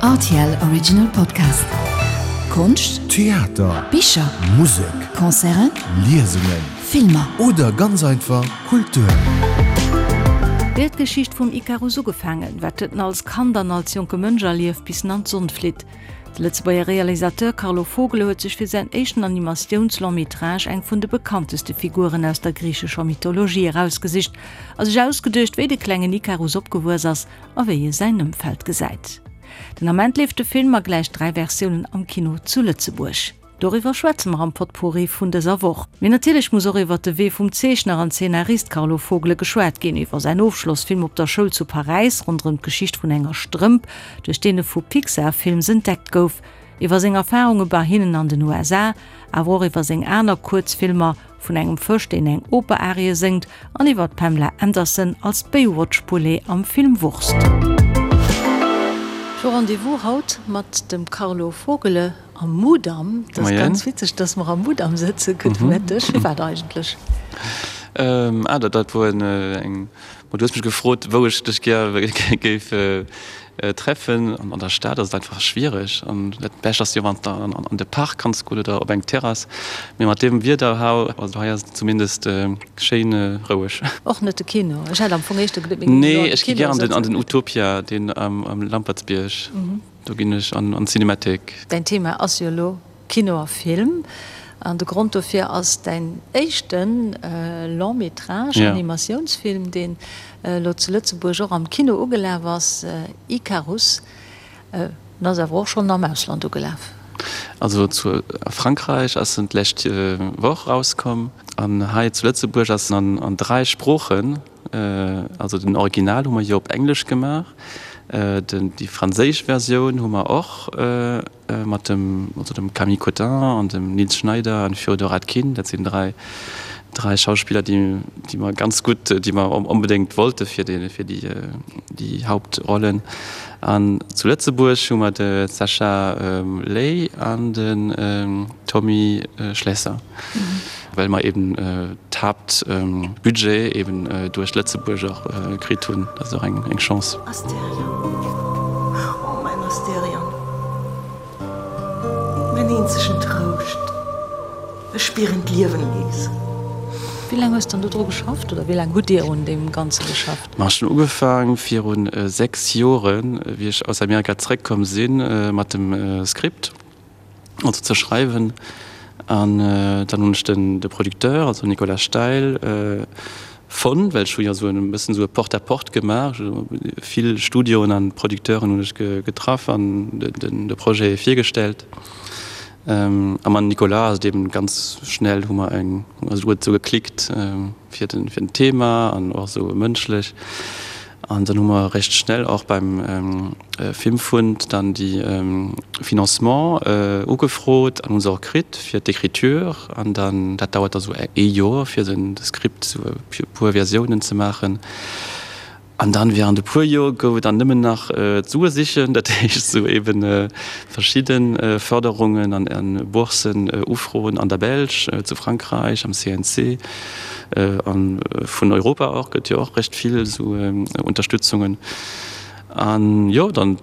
Rtl Original Podcast. Konscht, Theater, Bicher, Musek, Concerten, Liesungen, Filmer. Oder ganz einfach Kultur. Wéi huet d'Geschicht vum Ikarus ugefaangen? Wat huet en als Kand an als jonke Mënsch erlieft, bis en an d'Sonn flitt? De Lëtzebuerger Realisateur Carlo Vogele huet sech fir säin éischten Animatiouns-Long-métrage eng vun de bekannteste Figuren aus der griichescher Mythologie erausgesicht a sech ausgeduecht, wéi de klengen Ikarus opgewuess ass a wéi e säin Ëmfeld gesäit. Den Ament leeft de Film a gläich 3 Versiounen am Kino zu Lëtzebuerg. Doriwwer schwätze mer am Potpourri vun dëser Woch. Mee natierlech muss och iwwer de Wee vum Zeechner an Zeenarist Carlo Vogele geschwat ginn, iwwer säin Ofschlossfilm op der Schoul zu Paräis ronderëm d'Geschicht vun enger Strëmp, duerch deen e vu Pixar Films entdeckt gouf, iwwer seng Erfarunge bei hinnen an den USA, awer och iwwer seng aner Kuerzfilmer, vun engem Fësch, deen eng Oper-Arie séngt, an iwwer d'Pamela Anderson als Baywatch-Poulet am Film Wurst. Ech hu Rendez-vous haut mat dem Carlo Vogele am Mudam. Dat ass ganz witzeg, dass mer am Mudam sëtzen. Gudde Mëtteg. Firwat eigentlech? Ah, dat wor eng. Du hues mech gefrot, wou ech dech gär géif treffen. An der Stad ass et einfach schwiereg. An dat Bescht ass jo, wann s de an de Park kanns goen oder op eng Terrass. Mee mat deem Wieder hau, also hei ass et zumindest schéin roueg. Och net de Kino? Ech hat am Fong éischter geduet, mir géingen elo an de Kino sëtzen. Nee, ech gi gär an den Utopia, deen am Lampertsbierg. Do ginn ech an d'Cinémathèque. Däin Thema ass jo elo Kino a Film. An de Grond dofir ass däin éischte Long-métrage, Animatiounsfilm, deen elo zu Lëtzebuerg och am Kino ugelaf ass, Icarus. En ass awer och schonn am Ausland ugelaf. Also zu a Frankräich ass en d'lescht Woch erauskomm an hei zu Lëtzebuerg ass en an 3 Sproochen. Also den Original hu mer jo op Englesch gemaach, den déi franséisch Versioun hu mer och mat dem also dem Camille Cottin an dem Nils Schneider an Fyodor Atkin. Dat sinn 3 3 Schauspiller déi déi mer ganz gutt déi mer onbedéngt wollte fir déi fir déi déi Hauptrollen. An zu Lëtzebuerg hu mer de Sacha Ley an den Tommy Schlesser. Well mer eben d'Haaptbudget eben duerch Lëtzebuerg och kritt hunn. Dat ass och eng Chance. Asterion, oh mäin Asterion, mäin eenzegen Trouscht, ech spieren d'Liewen nees. Wéi laang hues de dann do dru geschafft oder wéi laang hutt Dir un deem Ganze geschafft? Ma ech hunn ugefaang virun 6 Joren, wéi ech aus Amerika zeréckkomm sinn, mat dem Skript. also ze schreiwen an dann hunn ech den de Producteur, also Nicolas Steil fonnt, well ech hu jo esou e bëssen esou e Porte-à-porte gemaach, vill Studioen an Producteuren hunn ech getraff an den de Projet virgestellt. A mam Nicolas ass et eben ganz schnell hu mer eng, also huet esou geklickt fir den fir den Thema an och esou mënschlech. An dann hu mer recht schnell och beim Filmfund dann déi Financement ugefrot an hu se och kritt fir d'Écriture. An dann, dat dauert da sou ee Joer fir den Skript sou e puer Versiounen ze maachen. An dann während e puer Joer gouf et dann nëmmen nach d'Sue sichen, dat heescht sou eben verschidde Förderungen an Boursen ufroen an der Belsch, zu Frankräich, am CNC. A vun Europa och gëtt jo och recht vill esou Unterstützungen. An jo, dann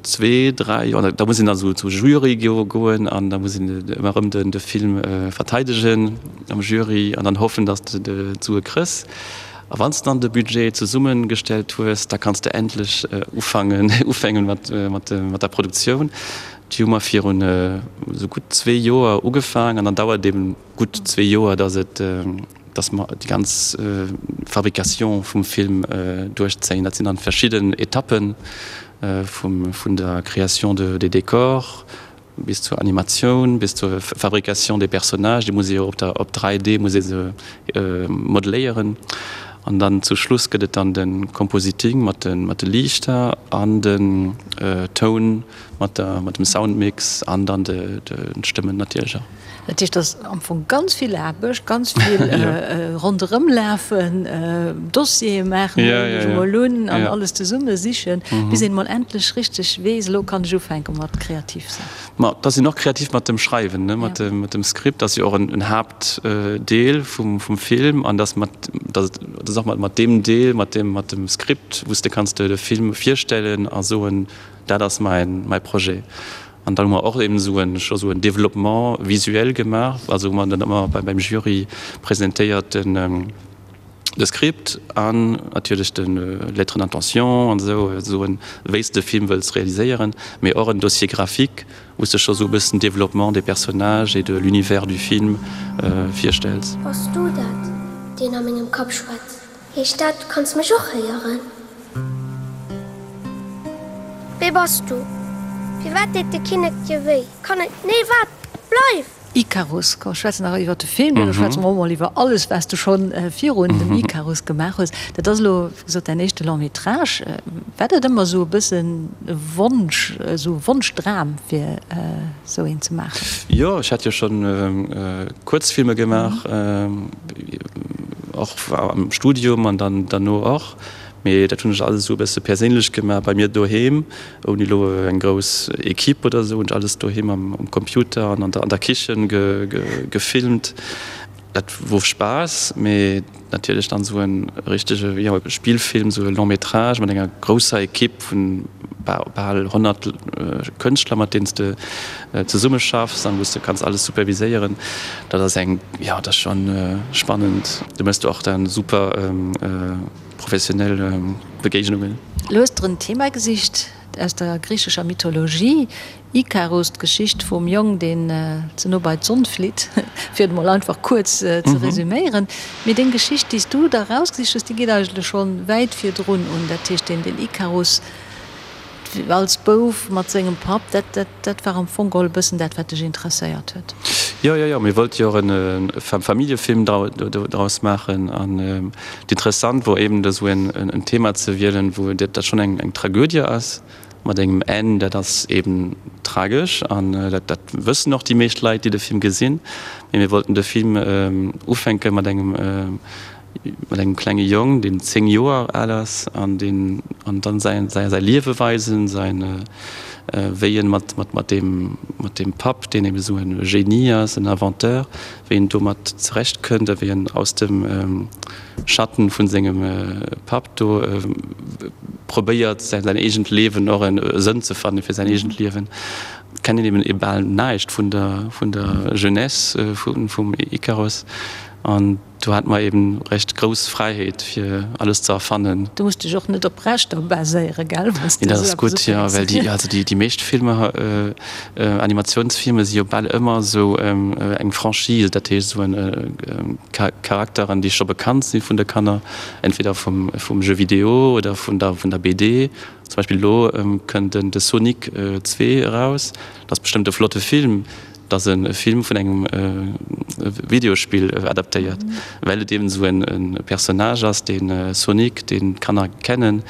zwee, dräi Joer, da muss een dann esou zum Jury goen an da muss een ëmmer erëm den de Film verteidegen am Jury an dann hoffen, datt s de d'Sue kriss. A wann s de dann de Budget zesummegestellt hues, da kanns de endlech ufangen ufängen mat mat mat der Produktioun. Déi hu mer virun esou gutt zwee Joer ugefaang an dann dauert eben gutt zwee Joer, dass et, dass mer déi ganz Fabrication vum Film duerchzéien. Dat sinn dann verschidden Etappen, vum, vun der Création de, des décors bis zur Animatioun, bis zur Fabrication des personnages, déi muss ee jo op der, op 3D muss ee se modeléieren. An dann zu Schluss gëtt et dann de Compositing mat de, mat de Liichter an den Toun mat der, mat dem Soundmix an dann de, de Stëmmen natierlech och. Dat heescht, dat ass am Fong ganz vill Aarbecht, ganz vill ronderëmlafen, Dossiere maachen, huelen ech emol un, an alles zesumme sichen, bis een emol endlech richteg weess, elo kann ech ufänke mat kreativ sinn. Ma da sinn och kreativ mat dem Schreiwen, ne, mat dem Skript ass jo och en Haaptdeel vum Film an dass mat, dass et och mat deem Deel, mat dem Skript, wou s de kanns de Film virstellen a soen. Dat ass mäin, mäi Projet. An dann hu mer och eben esou en, scho sou en Développement visuel gemaach, also wou mer dann ëmmer beim Jury presentéiert den, de Script an natierlech de Lettre d'intention an esou, soen, wéi s de Film wëlls realiséieren, mee och en Dossier graphique, wou s de scho sou e bëssen Développement des personnages et de l'univers du film virstells. Bass du dat, deen a mengem Kapp schwätzt? Heescht dat, du kanns mech och héieren? Wee bass du? Firwat deet de Kinnek dir wéi? Kann et. Nee, waart! Bleif! Icarus, komm schwätzen nach iwwer de Film, duerno schwätze mer och mol iwwer alles wat s du schonn virun dem Icarus gemaach hues. Dat ass elo wéi gesot däin éischte Long métrage. War dat ëmmer esou e bëssen e Wonsch, esou e Wonschdram fir esou een ze maachen? Jo, ech hat jo schonn Kuerzfilmer gemaach, och am Studium an dann derno och. Mee dat hunn ech alles esou e bësse perséinlech gemaach bei mir doheem, ouni elo eng grouss Equipe oder esou, hunn ech alles doheem am Computer an an der Kichen gefilmt. Dat wor Spaass, mee natierlech dann esou e richtege, jo, Spillfilm, esou e Long métrage mat enger grousser Equipe vun bal 100 Kënschtler, mat deenen s de zesummeschaffs an wou s de kanns alles superviséieren, dat ass eng, jo, dat ass schonn spannend. Do méchs de och dann super professionell Begéignungen. Lo hues der en Thema gesicht aus der griichescher Mythologie, Ikarus, d'Geschicht vum Jong, deen ze no bei d'Sonn flitt, fir et emol einfach kuerz ze resüméieren. Mee deng Geschicht, déi s du der erausgesicht hues, déi geet eigentlech schonn wäit virdrun un. Dat heescht, deen Ikarus als Bouf mat sengem Papp, dat, dat, dat war am Fong geholl e bëssen dat, wat dech interesséiert huet. Jo, jo, jo, mir wollte jo och e Familljefilm draus maachen. An interessant wor eben esou en Thema ze wielen, wou dat schonn eng Tragödie ass. Mat engem Enn, dat ass eben tragesch an dat dat wëssen och déi meescht Leit, déi de Film gesinn. Mee mir wollten de Film ufänke mat engem mat engem klenge Jong, deen 10 Joer al ass an deen an dann säin säi säi Liewe weisen, säin wéi en mat mat mat deem mat deem Papp, deen eben esou e Genie ass, en Inventeur, wéi en domat zerecht kënnt a wéi en aus dem Schatten vun sengem Papp do probéiert säin eegent Liewen och en Sënn ze fannen fir säin eegent Liewen. Kennt een eben bal näischt vun der vun der Jeunesse vum Ikaros an do hat mer eben recht grouss Fräiheet fir alles ze erfannen. Du muss dech och net op Rechter baséieren, gell? Nee, dat ass gutt, jo, well déi also déi meescht Filmer Animatiounsfilmer si jo bal ëmmer esou eng Franchise, dat heescht esou en Charakteren, déi scho bekannt si vun de Kanner, entweder vum vum Jeu vidéo oder vun der vun der BD. Zum Beispill elo kënnt den de Sonic 2 eraus, dat ass bestëmmt e flotte Film, dat ass e Film vun engem Videospill adaptéiert, well et eben esou en Personnage ass, dee Sonic, deen d'Kanner kennen.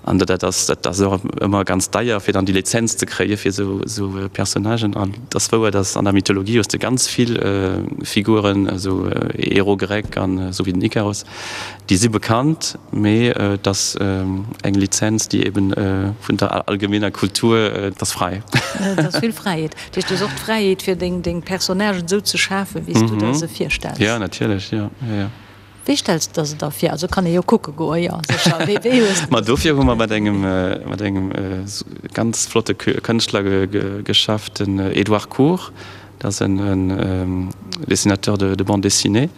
An dat ass dat ass och ëmmer ganz deier, fir dann déi Lizenz ze kréie fir esou esou Personnagen. An et ass wouer, datt an der Mythologie hues de ganz vill Figuren, esou Héros grec an esou wéi den Ikaros, déi si bekannt, mee et ass eng Lizenz, déi eben vun der allgemeener Kultur, et ass fräi. Et ass vill Fräiheet. Dat heescht, du hues och d'Fräiheet, fir deng deng Personnagen esou ze schafen, wéi s du der se virstells. Jo, natierlech, jo, jo, jo. Wéi stells de der se da vir? Also kann ee jo kucke goen, jo sécher. Wéi wéi hues de. Ma dofir hu mer mat engem mat engem ganz flotte Kënschtler geschafft, den Edouard Cour. Dat ass en en Dessinateur de de bande dessinée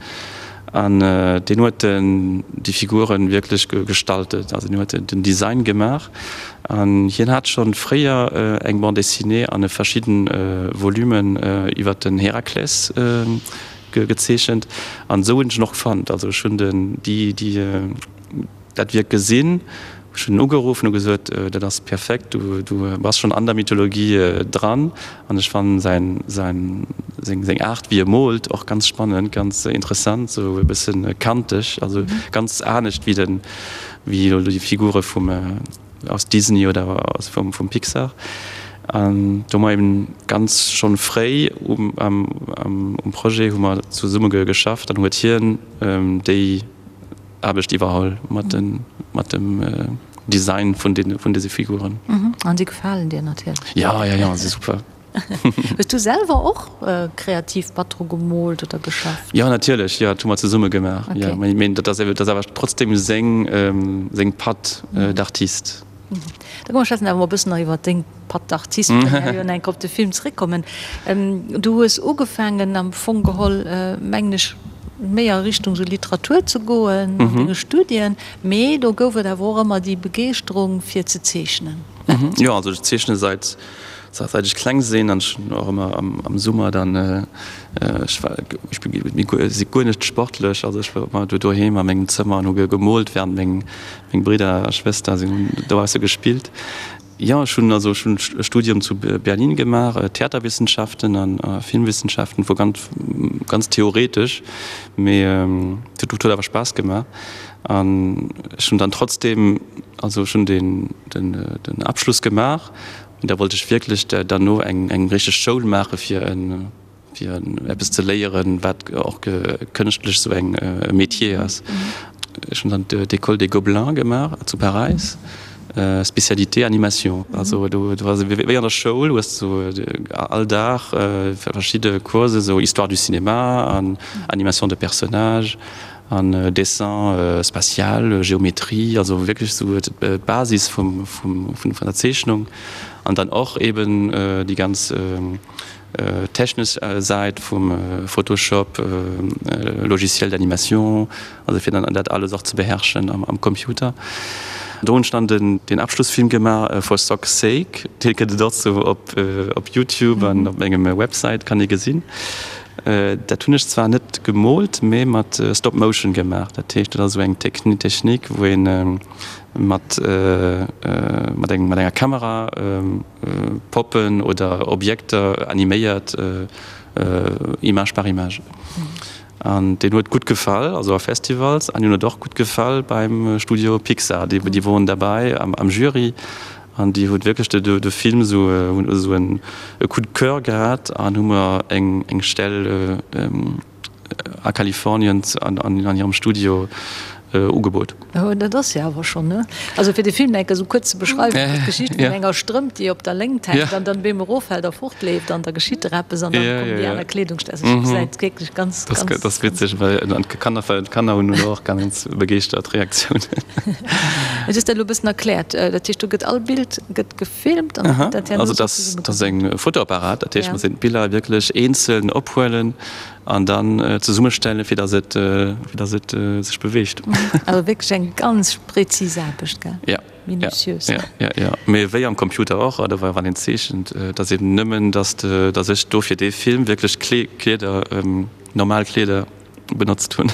an deen huet den déi Figuren wierklech gestaltet. Also deen huet den Design gemaach an hien hat schonn fréier eng Bande dessinée an e verschidden Volumen iwwer den Herakles gezeechent an esou hunn ech en och fonnt. Also ech hunn den déi déi dat Wierk gesinn, ech hunn en ugeruff an hu gesot, dat ass perfekt, du du bass schonn an der Mythologie dran an ech fannen säin säin seng seng Aart wéi e moolt och ganz spannend, ganz interessant, esou e bëssen kanteg, also ganz anescht wéi den wéi elo déi Figure vum aus Disney oder aus vum vum Pixar. An do hu mer eben ganz schonn fréi um am um Projet hu mer zesumme geschafft an huet hien déi Aarbecht iwwerholl mat de mat dem Design vun den vun dëse Figuren. An si gefalen dir natierlech? Jo, jo, jo, si super. Hues du selwer och kreativ mat dru gemoolt oder geschafft? Jo, natierlech, jo, dat hu mer zesumme gemaach. Jo, mee dat ass awer trotzdem seng seng Patte d'artiste. Da komm mer schwätzen awer mol e bëssen nach iwwer deng Patte d'artiste, well mer jo enk op de Film zeréckkommen. Du hues ugefaangen am Fong geholl, mengen ech, méi a Richtung sou Literatur ze goen an denge Studien, mee do gouf et awer och ëmmer déi Begeeschterung fir ze zeechnen. Jo, also ech zeechne seit seit ech kleng sinn an ech hunn och ëmmer am Summer dann, ech war, ech si guer net sportlech, also ech war ëmmer do doheem a mengem Zëmmer an hu gemoolt, während meng meng Bridder a Schwëster sinn hunn dobausse gespillt. Jo, ech hunn also ech hunn e Studium zu Berlin gemaach, Theaterwissenschaften an Filmwissenschaften, wor ganz ganz theoretesch, mee et huet awer Spaass gemaach an ech hunn dann trotzdem, also ech hunn den den den Abschluss gemaach, mee da wollt ech wierklech derno eng eng richteg Schoul maache fir en fir eppes ze léieren, wat och kënschtlech sou eng e Métier ass. Ech hunn dann d'École des Gobelins gemaach zu Paräis, Spécialité Animation. Also do do ass et wéi an der Schoul, hues du all Dag verschidde Coursen, sou Histoire du cinéma an Animation de personnages an Dessin spatial, Géométrie, also wierklech sou d'Basis vum vum vun der Zeechnung an dann och eben déi ganz Technesch Säit vum Photoshop, Logiciel d'animation, also fir dann dat alles och ze beherrschen am Computer. Do hunn ech dann den Abschlussfilm gemaach, For Sock's Sake, dee gëtt et och sou op Youtube an op mengem Website kann ee gesinn. Dat hunn ech zwar net gemoolt, mee mat Stop Motion gemaach. Dat heescht, dat ass esou eng Technik, wou ee mat enger Kamera Poppen oder Objekter animéiert, Image par Image. An deen huet gutt gefall, also a Festivals, an hien huet och gutt gefall beim Studio Pixar. Déi déi woren derbäi am am Jury an déi huet wierklech de de Film esou hunn esou en e Coup de coeur gehat an hu mer eng eng Stell a Kalifornien an hirem Studio ugebot. Oh, dat ass jo awer schonn, ne? Also fir de Film enke sou kuerz ze beschreiwen, dat ass d'Geschicht vun enger Strëmp, déi op der Léngt hänkt an dann op eemol eroffält a fortleeft an da geschitt der eppes an dann kommen déi aner Kleedungsstück. Also et gesäit wierklech ganz, ganz. Dat ass witzeg, well d'Kanner, d'Kanner hunn elo och ganz begeeschtert Reaktiounen. Et ass dat elo e bëssen erkläert. Dat heescht, do gëtt all Bild gëtt gefilmt an dann gëtt dat herno sou zesummegesat. Also dat ass eng Fotoapparat, dat heescht, mer sinn d'Biller wierklech eenzel ophuelen An dann zesummestellen, fir dass et, fir dass et sech beweegt. Also wierklech eng ganz präzis Aarbecht, gell? Ja. Minutiös. Ja, ja, ja. Mee wéi am Computer och, oder wann een zeechent, et ass eben nëmmen, dass de, dass ech do fir dee Film wierklech Kleeder, normal Kleeder benotzt hunn.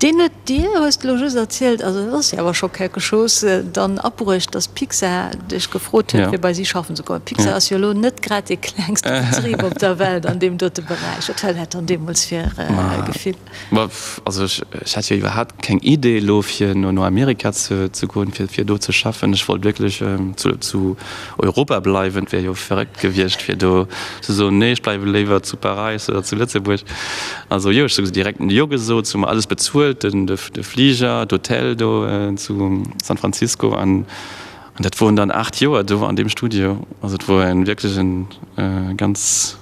Deen huet dir, hues de elo just erzielt, also dat ass jo awer scho quelque chose, dann abruecht, dass Pixar dech gefrot huet, fir bei si schaffen ze kommen. Pixar ass jo elo net grad dee klengste Betrib op der Welt an deem dote Beräich. Wat war dat dann deemools fir e Gefill? Ma also ech hat jo iwwerhaapt keng Idee elo fir no Amerika ze goen, fir do ze schaffen. Ech wollt wierklech zu Europa bleiwen. Et wär jo verréckt gewiescht fir do ze soen, nee ech bleiwe léiwer zu Paräis oder zu Lëtzebuerg. Also jo, ech hu direkt Jo gesot, se hu mer alles bezuelt, de Fliger, d'Hotel do zu San Francisco an dat woren dann 8 Joer do an deem Studio. Also et wor en wierklech en ganz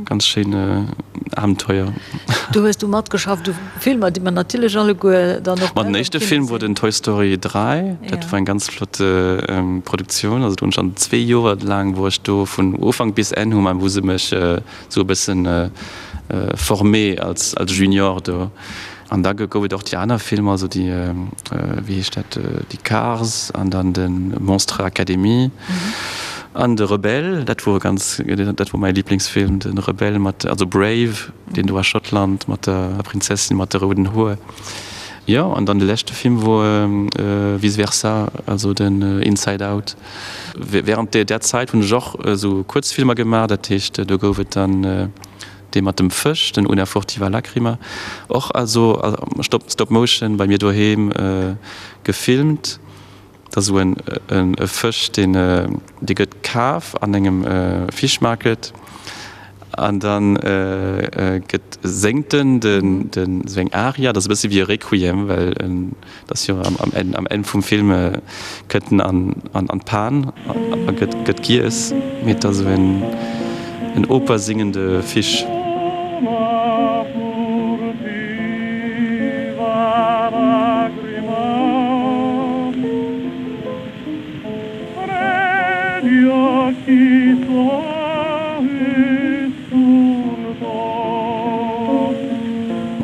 ganz schéin Abenteuer. Do hues du matgeschafft u Filmer, déi mer natierlech alleguer dann och. Ma den éischte Film wor den Toy Story 3, dat wor eng ganz flott Produktioun. Also do hunn ech an zwee Joer laang wor ech do vun Ufank bis Enn hu mer hu se mech sou e bëssen formé als als Junior do. An da gouf et och déi aner Filmer, also déi, wéi heescht dat, déi Cars an dann de Monstre Academy an de Rebelle, dat wor ganz, dat wor mäi Liblingsfilm, de Rebelle mat, also Brave, deen do a Schottland mat der Prinzessin mat de rouden Hoer. Jo, an dann de leschte Film wor Vice Versa, also den Inside Out. Während där Zäit hunn ech och esou Kuerzfilmer gemaach, dat heescht do gouf et dann dee mat dem Fësch, den Una furtiva lacrima, och also Stop Stop Motion bei mir doheem gefilmt. Dat ass esou en e Fësch, deen dee gëtt kaf an engem Fish Market an dann gëtt séngt en den den esou eng Aria, dat ass e bësse wéi e Requiem, well en Et ass jo am Enn, am Enn vum Film kënnt en an, an, an d'Pan a gëtt, gëtt giess. Mee et ass esou en, en Oper singende Fisch.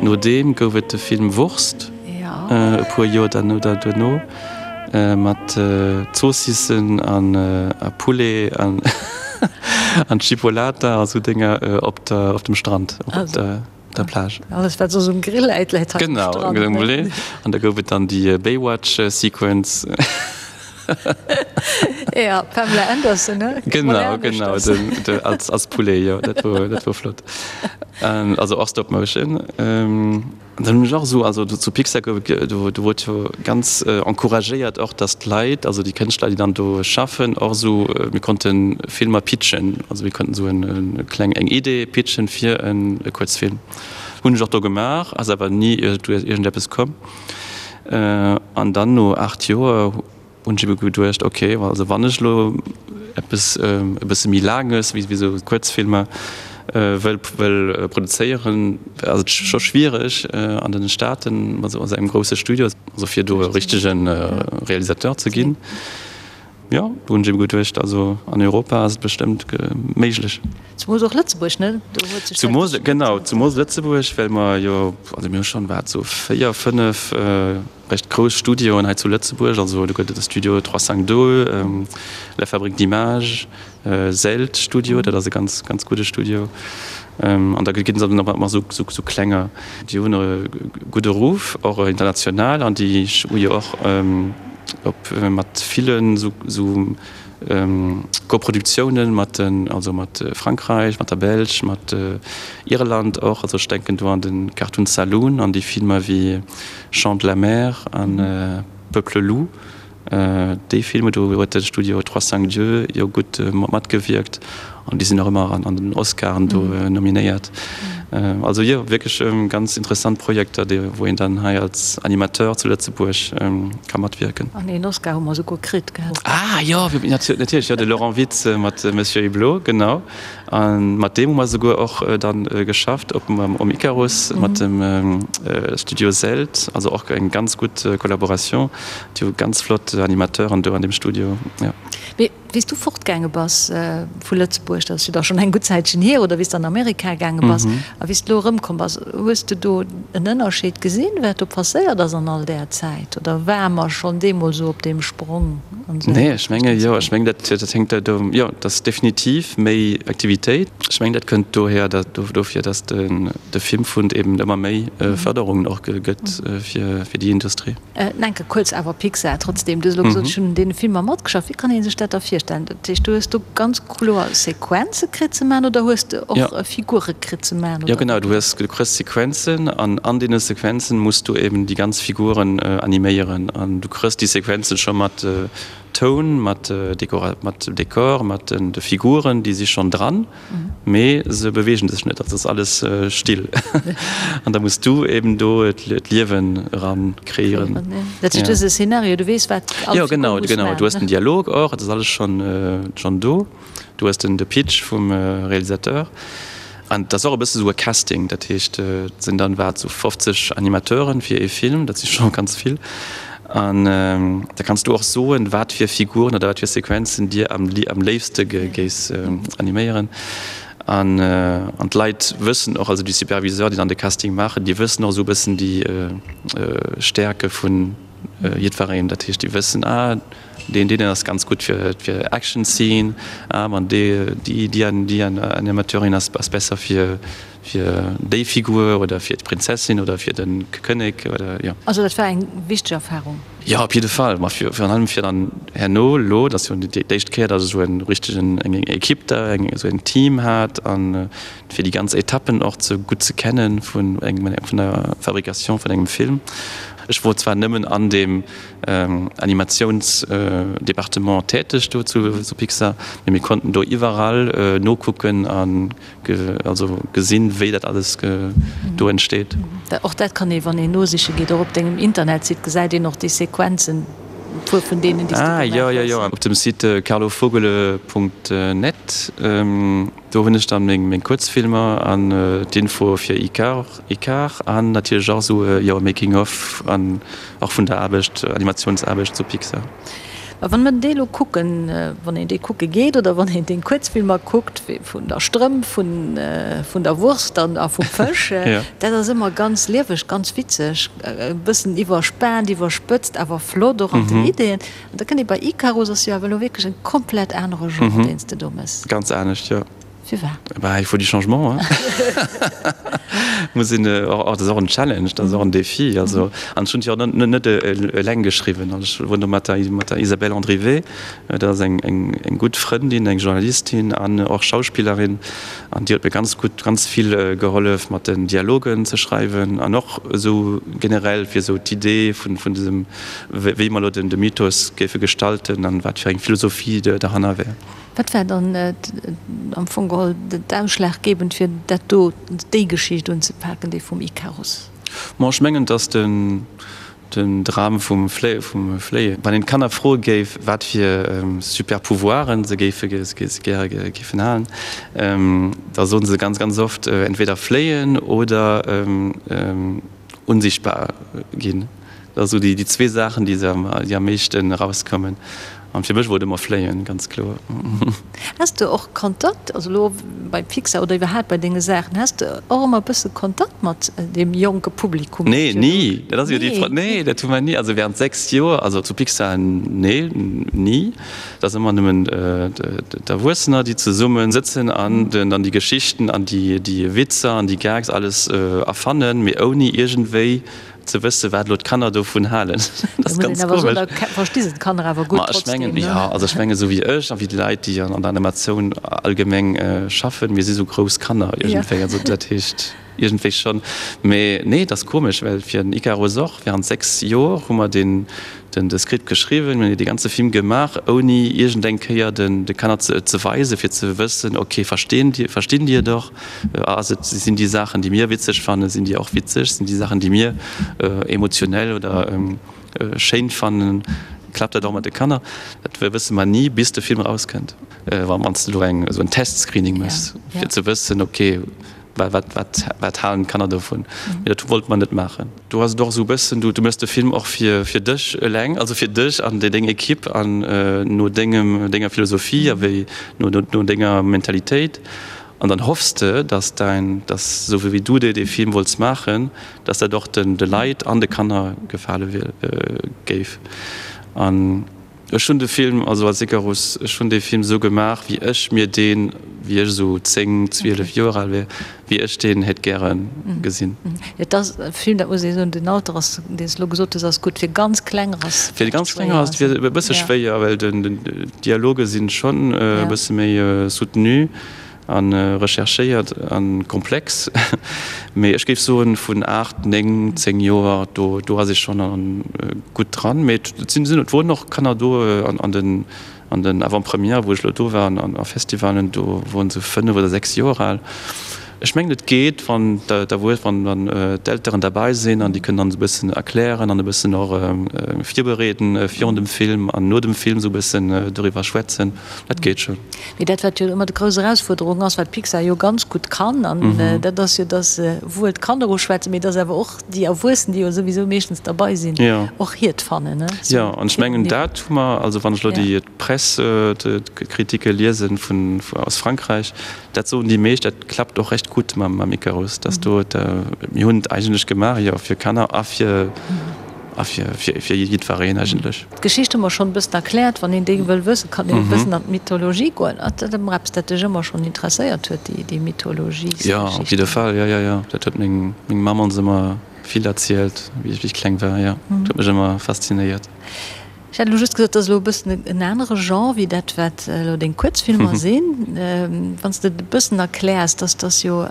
No deem gouf et de Film Wurst, e puer Joer duerno, mat Zoossissen a Poulet an Chipolata a sou Dénger op dem Strand, op der Plage. Alles wat soss um Grill läit, läit hei um Strand. Genau, an da gouf et dann déi Baywatch-Sequence. Ja, Pamela Anderson, ne? Genau, genau, den, de, als, als Poulet, jo, dat wor, dat wor flott. Ähm, also och Stop Motion. Ähm, dann hunn ech och esou, also zu Pixar gouf et, do, do wor jo ganz äh, encouragéiert och, dass d'Leit, also déi Kënschtler, déi dann do schaffen, och esou, äh, mir konnte Filmer pitchen, also mir konnten esou en, en kleng, eng Idee pitchen fir en e Kuerzfilm. Hunn ech och do gemaach, ass awer ni iergendeppes komm. An dann no 8 Joer hunn ech ebe geduecht, ok, also wann ech elo eppes e bësse méi Laanges wéi esou Kuerzfilmer wëll wëll produzéieren, ass et scho schwiereg an den Staaten mat esou engem grousse Studio, also fir do e richtege Realisateur ze ginn. Jo, do hunn ech ebe geduecht, also an Europa ass et bestëmmt méiglech. Zumoos och Lëtzebuerg, ne? Do huet sech dat Zumoos, genau, zumoos Lëtzebuerg, well mer jo, also mir hu schonn, wat, sou 4, 5 recht grouss Studioen hei zu Lëtzebuerg. Also do gëtt et de Studio 352, La Fabrique d'images, Zelt Studio, dat ass e ganz, ganz gudde Studio. An da ginn et nach ëmmer sou klenger. Déi hunn e gudde Ruff, och international, an déi hu jo och op mat villen sou Koproduktiounen mat den, also mat Frankräich, mat der Belsch, mat Irland och. Also ech denken do an de Cartoon Saloon, an déi Filmer wéi Chant de la mer an Peuple loup. Déi Filmer, do huet de Studio Trois Cinq Dieux jo gutt matgewierkt an déi sinn och ëmmer an den Oscaren do nominéiert. Also jo, wierklech ganz interessant Projekter, déi wou een dann hei als Animateur zu Lëtzebuerg ka matwierken. An een Oscar hu mer esouguer kritt, gell? Ah jo, natierlech, jo, de Laurent Witz mat Monsieur Hublot, genau. A mat deem hu mer souguer och dann geschafft op um Icarus mat dem Studio Zelt, also och eng ganz gutt Collaboration. Déi hu ganz flott Animateuren do an deem Studio, jo. Mee wéi s du fortgaange bass vu Lëtzebuerg, dat ass jo da schonn eng gutt Zäitchen hier, oder wéi s de an Amerika gaange bass a wéi s de elo erëmkomm bass, hues de do en Ënnerscheed gesinn, wat do passéiert ass an all där Zäit, oder ware mer schonn deemools esou op deem Sprong? Nee, ech menge jo, ech meng dat dat hänkt dat do, jo, dat ass definitiv méi Aktivitéit. Ech meng dat kënnt dohier, dat dofir, datt den de Filmfund eben ëmmer méi Fërderungen och gëtt fir fir déi Industrie. Enke kuerz awer Pixar trotzdem, du hues elo gesot, ech hunn un deene Filmer matgeschafft. Wéi kann ee sech dat da virstellen? Dat heescht, du hues do ganz kloer Sequenze kritt ze maachen oder hues de och Figure kritt ze maachen? Jo genau, du hues, du kriss Sequenzen an an deene Sequenzen muss du eben déi ganz Figuren animéieren an du kriss déi Sequenzen scho mat Toun, mat Dekora, mat Dekor, mat den de Figuren, déi si schonn dran, mee se beweegen sech net, also ass alles still an da muss du eben do d'Liewen eran kreéieren. Dat heescht, du hues e Szenario, du weess wat all Figur muss maachen? Jo genau, genau, du hues den Dialog och, et ass alles schonn schonn do. Du hues den de Pitch vum Realisateur an et ass och e bësse sou e Casting, dat heescht et sinn dann wat sou 50 Animateuren fir ee Film, dat si scho ganz vill an da kanns du och soen, wat fir Figuren oder wat fir Sequenzen dir am am léifste géifs animéieren an an d'Leit wëssen och, also déi Superviseur, déi dann de Casting maachen, déi wëssen och esou e bëssen déi Stärke vun jiddwereen, dat heescht déi wëssen, ah Deen deen ass ganz gutt fir fir Action Scene, ah an dee déi déi déi Animateurin ass ass besser fir fir déi Figur oder fir d'Prinzessin oder fir den Kënnek oder jo. Also dat war eng wichteg Erfahrung? Jo op jidde Fall, ma fir virun allem fir dann herno elo, dat ass jo déi éischt Kéier datt ech esou en richtegen eng Equipe da eng esou en Team hat an fir déi ganz Etappen och ze gutt ze kennen vun engem vun der Fabrication vun engem Film. Ech wor zwar nëmmen an deem Animatiounsdepartement täteg do zu Pixar, mee mir konnten do iwwerall nokucken an also gesinn, wéi dat alles do entsteet. Och dat kann ee, wann een nosiche geet, och op dengem Internetsite gesäit een och déi Sequenzen, e puer vun deenen, déi s du gemaach hues. Ah, jo, jo, jo, op dem Site carlovogele.net, do hunn ech dann meng Kuerzfilmer an d'Info fir Icare. Icare an natierlech och esou, jo, Making of an och vun der Aarbecht, Animatiounsaarbecht zu Pixar. A wann mer déi elo kucken, wann een déi kucke geet oder wann een deng Kuerzfilmer kuckt, vun der Strëmp, vun der Wurst an a vum Fësch, dat ass ëmmer ganz lieweg, ganz witzeg, e bëssen iwwerspaant, iwwerspëtzt, awer flott och an den Ideeën. An da kënnt ee bei Icarus, ass jo awer elo wierklech en komplett anere Genre, deen s de do méchs. Ganz anescht, jo. Firwat? Bah, il faut du changement, hein. Muss een och, dat ass och en Challenge, dat ass och en Défi. Also, an ech hunn et jo och net, net eleng geschriwwen. Also ech wor do mat der, mat der Isabelle Andrivet, dat ass eng, eng, eng gutt Frëndin, eng Journalistin an och Schauspillerin, an déi huet mir ganz gutt, ganz vill gehollef mat den Dialogen ze schreiwen an och esou generell fir esou d'Idee vun, vun dësem, wéi mer elo den, de Mythos géife gestalten an wat fir eng Philosophie derhanner wär. Wat war dann am Fong geholl d'ausschlaggebend fir dat do, déi Geschicht unzepaken, déi vum Ikarus? Bon, ech mengen, dass den Dram vum Fléien, wann een d'Kanner froe géif, wat fir super Pouvoiren se géife gäre géifen halen, da soen se ganz, ganz oft entweder fléien oder unsichtbar ginn. Dat ass esou déi zwee Saachen, déi am meeschten erauskommen. An fir mech wor et ëmmer fléien, ganz kloer. Has de och Kontakt, also elo bei Pixar oder iwwerhaapt bei denge Saachen, has de och ëmmer e bësse Kontakt mat deem jonke Publikum? Nee, ni. Dat ass jo déi Fro. Nee, dat hu mer ni. Also während 6 Joer, also zu Pixar, nee, ni. Et ass ëmmer nëmmen d'Erwuessener, déi zesumme sëtzen an dann déi Geschichten an déi Witzer an déi Gags alles erfannen, mee ouni iergendwéi ze wëssen, wat elo d'Kanner dovun halen. Dat ass ganz komesch. Versti se d'Kanner awer gutt trotzdem, ne? Jo, also ech mengen, esou wéi ech a wéi déi Leit, déi an der Animatioun allgemeng schaffen, mir si sou grouss Kanner iergendwéi. Also dat heescht iergendwéi schonn. Mee nee, et ass komesch, well fir den Icarus och, während 6 Joer hu mer deen, den de Script geschriwwen, mir hunn dee ganze Film gemaach, ouni iergendeng Kéier den de Kanner ze ze weisen, fir ze wëssen, okay, verstinn déi, verstinn déi et och? Ass et, sinn déi Saachen, déi mir witzeg fannen, sinn déi och witzeg? Sinn déi Saachen, déi mir emotionell oder schéin fannen, klappt dat och mat de Kanner? Dat wësse mer ni, bis de Film erauskënnt. Wann s de elo eng esou en Testscreening méchs, fir ze wëssen, okay, wat, wat, wat halen d'Kanner dovun? Mee dat wollte mer net maachen. Do ass et och esou e bëssen, du, du méchs de Film och fir, fir dech eleng, also fir dech an deng Ekipp an no dengem, denger Philosophie a wéi no, no denger Mentalitéit. An dann hoffs de, dass däin, dass esou wéi du dee Film wollts maachen, dass dat och den, de Leit an de Kanner gefale géif. An ech hunn de Film, also als Icarus, ech hunn dee Film esou gemaach, wéi ech mir deen, wéi ech esou 10, 12 Joer al wär, wéi ech deen hätt gäre gesinn. Et ass e Film, dat muss ee soen, den Alter ass, deen s de elo gesot hues, ass gutt. Fir ganz Klenger ass Fir ganz Klenger ass et e bësse schwéier, well den, d'Dialoge sinn schonn e bësse méi soutenu a recherchéiert a komplex. Mee ech géif soen, vun 8, 9, 10 Joer, do do ass ee schonn gutt dran. Mee et sinn et woren och Kanner do an den an den Avant-premièrë wou ech elo do war an a Festivalen, do woren se 5 oder 6 Joer al. Ech mengen et geet, wann d'Erwues, wann dann d'Elteren derbei sinn an déi kënnen dann esou e bëssen erklären an e bëssen och virbereeden virun dem Film an no dem Film esou e bëssen doriwwer schwätzen, dat geet schonn. Mee dat wat jo ëmmer déi grouss Erausfuerderung ass, wat Pixar jo ganz gutt kann, an dat ass jo, datt se wuel d'Kanner uschwätzen, mee datt awer och déi Erwuessen, déi jo souwisou meeschtens derbei sinn, och hiert fannen. Jo, an ech mengen dat hu mer, also wann ech elo déi Press, d'Kritike liesen vun aus Frankräich, Dat soen déi meescht, dat klappt och recht gutt mam Icarus, dass do, mir hunn et eigentlech gemaach, jo, fir Kanner a fir, a fir, fir jiddwereen eigentlech. D'Geschicht hu mer schonn e bëssen erkläert. Wann een déi wëll wëssen, kann een e bëssen an d'Mythologie goen. Ass dat ëmmer eppes, dat dech ëmmer schonn interesséiert huet, déi, déi Mythologiesgeschichten? Jo, op jidde Fall, jo, jo, jo. Dat huet meng, meng Mamm ons ëmmer vill erzielt, wéi ech kleng war, jo. Dat huet mech ëmmer faszinéiert. Ech hätt elo just gesot, et ass elo e bëssen en anere Genre wéi dat, wat elo deng Kuerzfilmer sinn. Wann s de et e bëssen erkläers, dass dass jo,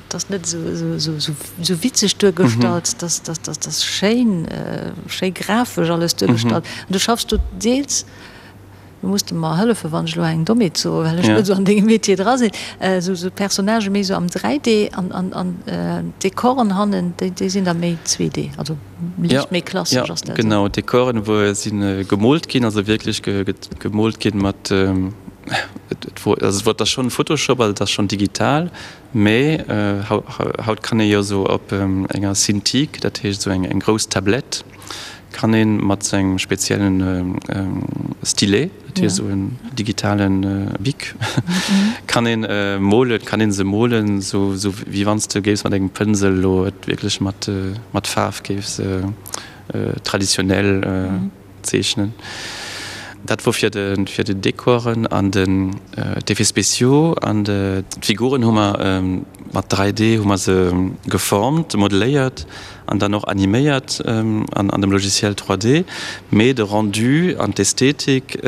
dass net esou witzeg duergestallt, dass dass dass dass schéin, schéi grafesch alles duergestallt. An du schaffs do deels, do muss de mer hëllefen, wann ech elo eng Dommheet soen, well ech net esou an dengem Metier dra sinn, esou esou Personnagë méi esou am 3D an an an d'Dekoren hannen, déi déi sinn da méi 2D, also. Liicht méi klassesch ass dat. Genau, d'Dekoren wou sinn gemoolt ginn, also wierklech gemoolt ginn mat, et wor, also et wor, et ass schonn Photoshop, also et ass schonn digital, mee haut kann ee jo esou op enger Cintiq, dat heescht esou eng grouss Tablett, Kann een mat sou engem speziellen Stylet, dat wier sou en digitalen Bic, kann een molen, kann een se molen, sou wéi wann s de géifs mat engem Pënsel elo et wierklech mat mat Faarf géifs traditionell zeechnen. Dat wor fir de fir de Dekoren an den d'Effets spéciaux an d'Figuren hu mer mat 3D hu mer se geformt, modeléiert an dann och animéiert an dem Logiciel 3D, mee de Rendu an d'Ästhetik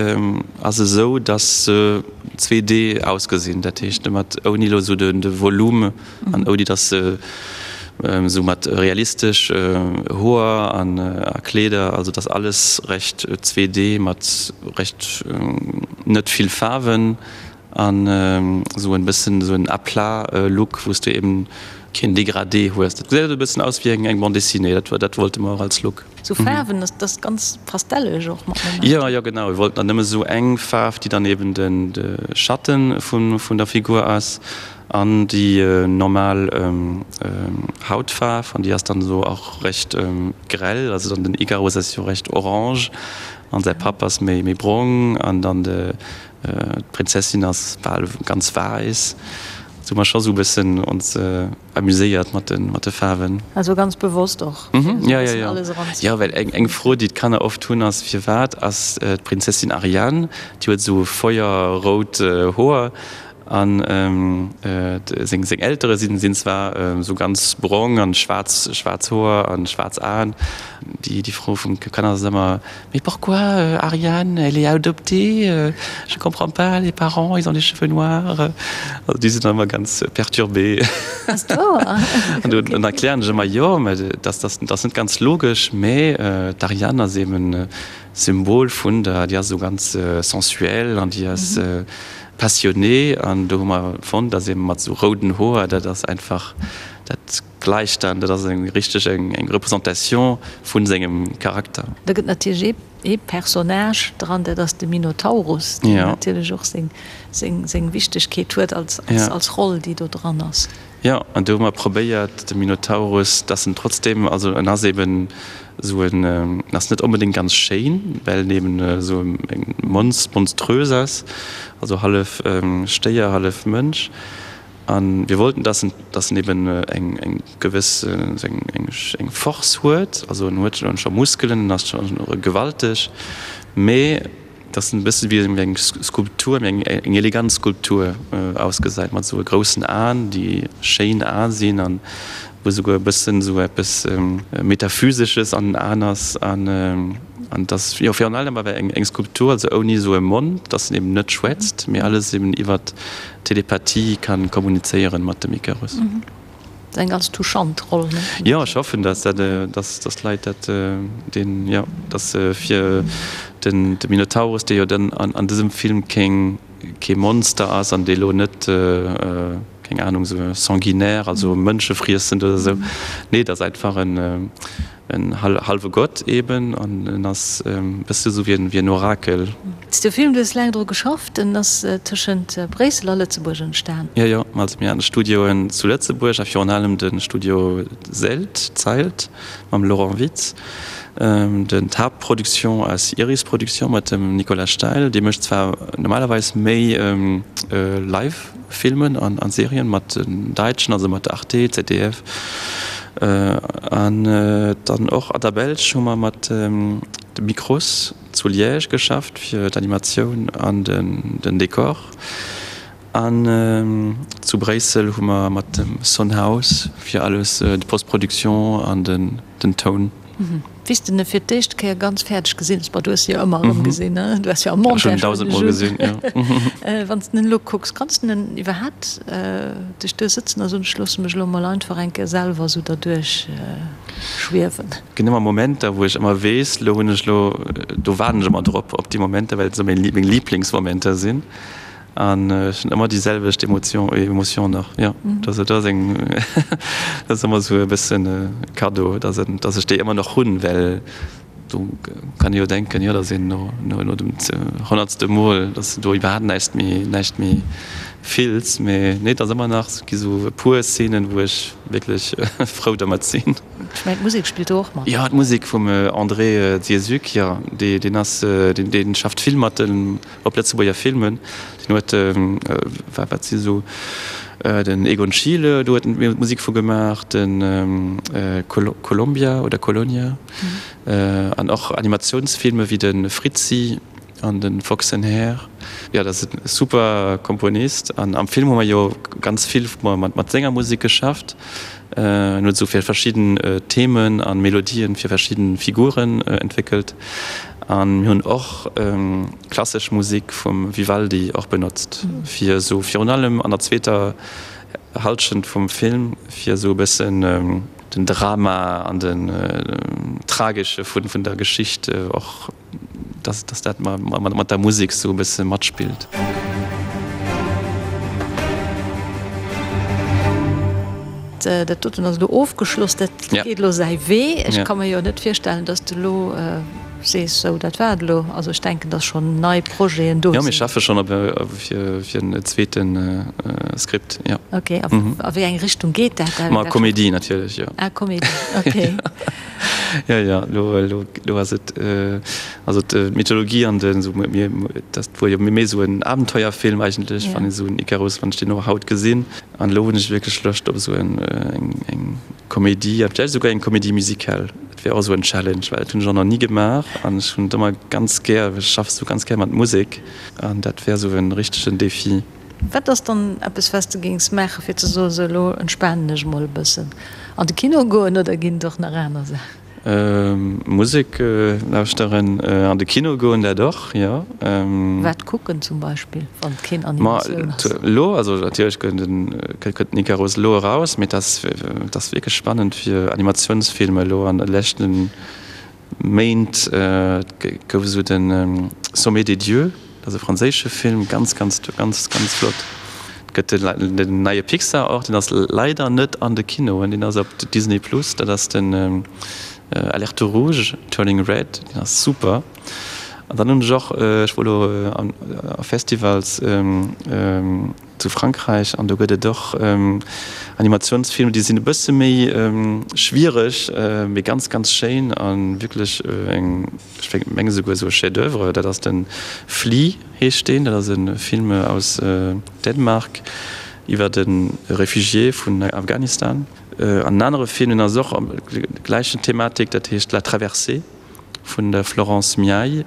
ass esou, dass se 2D ausgesinn, dat heescht mat ouni elo esou de Volume an ouni dass se esou mat realistesch Hoer an a Kleeder, also dass alles recht 2D mat recht net vill Faarwen. An esou en bëssen esou en à plat Look, wou s de eben keen Dégradé hues. Dat gesäit e bëssen aus wéi eng Bande dessinée, dat dat wollte mer och als Look. Sou Faarwen, dat ass ganz pastelleg och mat Momenter. Jo, jo genau, mir wollten dann nëmme sou eng Faarf, déi dann eben den de Schatten vun vun der Figur ass an déi normal Hautfaarf, an déi ass dann esou och recht grell, also dann den Ikarus ass jo recht orange an säi Papp ass méi méi brong an dann de D'Prinzessin ass bal ganz wäiss. Do hu mer scho sou e bëssen ons amuséiert mat de Faarwen. Also ganz bewosst och, fir esou e bëssen alles eranzebréngen. Jo, well eng Fro, déi d'Kanner oft hunn, ass, Firwat ass d'Prinzessin Ariane, déi huet esou feuerrout Hoer, an seng Eltere sinn zwar esou ganz brong an schwaarz Hoer an schwaarz Aen. Déi Fro vum Kanner ass ëmmer, Mais pourquoi Ariane, elle est adoptée, je comprends pas, les parents, ils ont les cheveux noirs. Also déi sinn dann ëmmer ganz perturbé. Ass dat wouer? An dann erklären ech ëmmer, jo, mä dat ass net ganz logesch, mä d'Ariane ass eben Symbol vun der, déi ass esou ganz sensuel an déi ass passionnée an do hu mer fonnt, dass eben mat esou rouden Hoer, dat ass einfach, dat gläicht dann, dat ass eng richteg eng Représentation vu sengem Charakter. Da gëtt natierlech ee Personnage dran, dat ass de Minotaurus, deen natierlech och seng Wichtegkeet huet als Roll, déi do dran ass. Jo, an do hu mer probéiert, de Minotaurus, dass en trotzdem, also en ass eben esou en, en ass net onbedéngt ganz schéin, well en eben esou eng monströs ass, also hallef Stéier, hallef Mënsch. A mir wollten, dass en, dass en eben eng, eng gewëss, eng, eng Force huet, also en huet scho Muskelen, en ass scho gewalteg, mee dass en e bësse wéi eng Skulptur, eng, eng elegant Skulptur ausgesäit, mat esou groussen Aen, déi schéin Ae sinn an wou esouguer e bëssen esou eppes Metaphysesches an den Aen ass. An, an dass, jo, virun allem awer eng, eng Skulptur, also ouni esou e Mond, dass en eben net schwätzt, mee alles eben iwwert Telepathie kann kommunizéieren mat dem Icarus. Dat ass eng ganz touchant Roll, ne? Jo, ech hoffen, dass dat, dass dass d'Leit dat deen, jo, dass fir den de Minotaurus, dee jo dann an an dësem Film keng kee Monster ass an dee lo net, keng Ahnung, sou sanguinaire, also mënschefriessend oder sou, nee, et ass einfach en En hallwe Gott eben, an en ass e bësse sou wéi en Orakel. De Film, du hues laang dru geschafft, en ass tëschent Bréissel a Lëtzebuerg entstan. Jo, jo, also mir haten Studioen zu Lëtzebuerg a virun allem de Studio Zelt, Zeilt, mam Laurent Witz. Den d'Haaptproduction ass Iris Production mat dem Nicolas Steil, dee mécht zwar normalerweis méi Live Filmen an Serien mat den Däitschen, also mat Arte, ZDF an dann och an der Belsch hu mer mat de Micros zu Liège geschafft fir d'Animatioun an den Dekor an zu Bréissel hu mer mat dem Son House fir alles d'Post-Production an den Toun. Wéi s de en fir d'éischt Kéier ganz fäerdeg gesinn hues, bon, du hues se jo ëmmer erëm gesinn, ne? Du hues jo am Montage Ech hunn en dausendmol gesinn, jo. Wann s de en elo kucks, kanns de en iwwerhaapt dech do sëtzen a soen, ech loosse mech elo mol einfach eng Kéier selwer esou derduerch schwiewen? Et ginn ëmmer Momenter, wou ech ëmmer weess, elo hunn ech elo, do waarden ech ëmmer drop, op déi Momenter, well et esou meng Liblingsmomenter sinn. An ech hunn ëmmer déi selwecht Emotion, Emotion nach, jo. Dat ass eng, dat ass ëmmer esou e bëssen e Cadeau, dass en, dass ech déi ëmmer nach hunn, well. Do kann ee jo denken, jo, datt een no no dem honnertste Mol, datt s de do iwwerhaapt näischt méi näischt méi fills. Mee nee, et ass ëmmer nach, et gi sou e puer Szenen, wou ech wierklech frou dermat sinn. Ech mengen, d'Musek spillt do och mat. Jo, d'Musek vum André Dziezuk, jo, dee deen ass, deen dee schafft vill mat den op Lëtzebuerger Filmen. Deen huet, wat si sou, den Egon Schiele, do huet en d'Musek vu gemaach, den Colombia oder Colonia an och Animatiounsfilme wéi de Fritzi an de Fox and Hare. Jo, dat ass e super Komponist an am Film hu mer jo ganz vill mat senger Musek geschafft. En huet esou fir verschidden Themen a Melodien fir verschidden Figuren entwéckelt. An mir hunn och klassesch Musik vum Vivaldi och benotzt, fir esou virun allem an der zweeter Halschent vum Film, fir esou e bëssen den Drama an den Tragesche vun der Geschicht och dass dass dat mat der Musek sou e bësse matspillt. Dat doten ass elo ofgeschloss, dat geet elo säi Wee. Ech ka mer jo net virstellen, dass de elo sees, sou dat war et elo. Also ech denken, dass schonn nei Projeten do sinn. Jo, mir schaffe schonn op fir fir en zweete Skript, jo. Ok, a wéi eng Richtung geet dat? Ma Komedie natierlech, jo. Ah, Komedie, ok. Jo, jo, elo, elo, elo ass et, also d'Mythologie an den, esou mir, dat wor jo méi esou en Abenteuerfilm eigentlech, wann ee sou en Icarus, wann ech deen och haut gesinn. An elo hunn ech wierklech Loscht op esou en, eng, eng Comédie, a vläicht esouguer eng Comédie musicale. Dat wär och esou en Challenge, well dat hunn ech och nach ni gemaach an ech hunn et ëmmer ganz gär, ech schaff esou ganz gär mat Musek an dat wär esou en richtegen Défi. Wat ass dann eppes, wat s de géings maachen, fir ze soen, sou elo entspanen ech emol e bëssen? An de Kino goen oder ginn et och nach aner Saachen? Musek lauschteren, an de Kino goen, dat och, jo. Wat kucken zum Beispill, wann et keen Animatioun ass? Elo, also natierlech kënnt den Icarus elo eraus, mee et ass wierklech spannend fir Animatiounsfilmer elo an de leschten Méint gouf esou de Sommet des dieux, dat ass e franséische Film, ganz, ganz, ganz, ganz flott. Et gëtt den neie Pixar och, deen ass leider net an de Kinoen, deen ass op Disney Plus, dat ass den Alerte Rouge, Turning Red, deen ass super. An dann hunn ech och, ech wor elo a Festivals, Zu Frankräich, an do gëtt et och Animatiounsfilmer, déi sinn e bësse méi schwiereg, mee ganz, ganz schéin a wierklech eng, ech menge souguer esou e Chef-d'oeuvre, dat ass de Flee heescht deen. Dat ass e Film aus Dänemark iwwer e Refugié vun Afghanistan. An en anere Film, deen ass och am gläichen Thematik, dat heescht La Traversée. Vun der Florence Miaille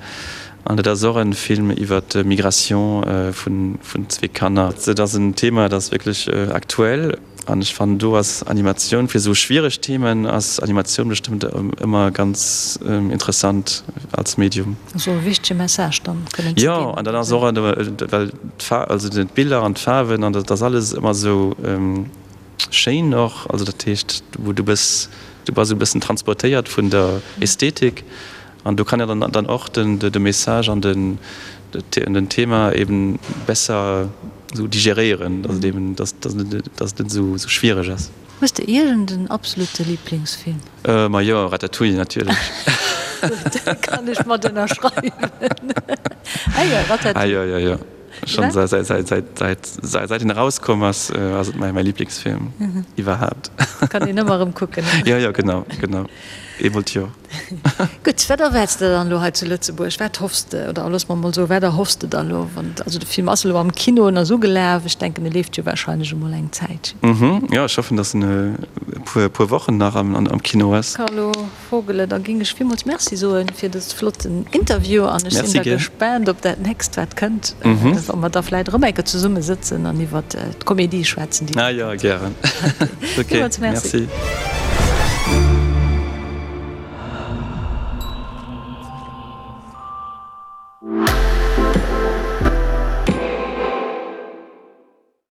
an dat ass och en Film iwwer d'Migration vun zwee Kanner. Dat ass en Thema, dat ass wierklech aktuell an ech fannen do ass Animatioun fir esou schwiereg Themen ass Animatioun bestëmmt ëmmer ganz interessant als Medium. Esou e wichtege Message dann kënnen ze ginn. Jo, an dann ass och, well d'Faarwen, also d'Biller an d'Faarwen an dat ass alles ëmmer esou. Schéin och, also dat heescht wou du bës, du bass esou e bëssen transportéiert vun der Ästhetik an do kann ja dann dann och den de Message an den den Thema eben besser esou digeréieren, dass et eben dass dass dass et net esou esou schwiereg ass. Hues de iergend en absolute Liblingsfilm? Ma jo, Ratatouille natierlech. Gutt, dat kann ech mat ënnerschreiwen. Ah jo, Ratatouille. Ah jo, jo, jo. Schon säit en erauskomm ass, ass et mäi Lieblingsfilm iwwerhaapt. Kann een ëmmer erëm kucken. Jo, jo, genau, genau. Eemol d'Joer. Gutt, wat erwaarts de dann elo hei zu Lëtzebuerg? Wat hoffs de, oder looss mer emol soen, wat erhoffs de der elo? Wann, also de Film ass elo am Kino en ass ugelaf, ech denken, e leeft jo warscheinlech emol eng Zäitchen. Jo, ech hoffen, datt en e puer Wochen nach am Kino ass. Carlo. Vogele, da ging ech villmools Merci soen fir dës flotten Interview an ech sinn da gespaant op dat nächst wat kënnt, wa mer da vläit erëm eng Kéier zesumme sëtzen an iwwert d'Comédie schwätzen déi da kënnt. Ah jo, gären. Ok, Villmools Merci. Merci.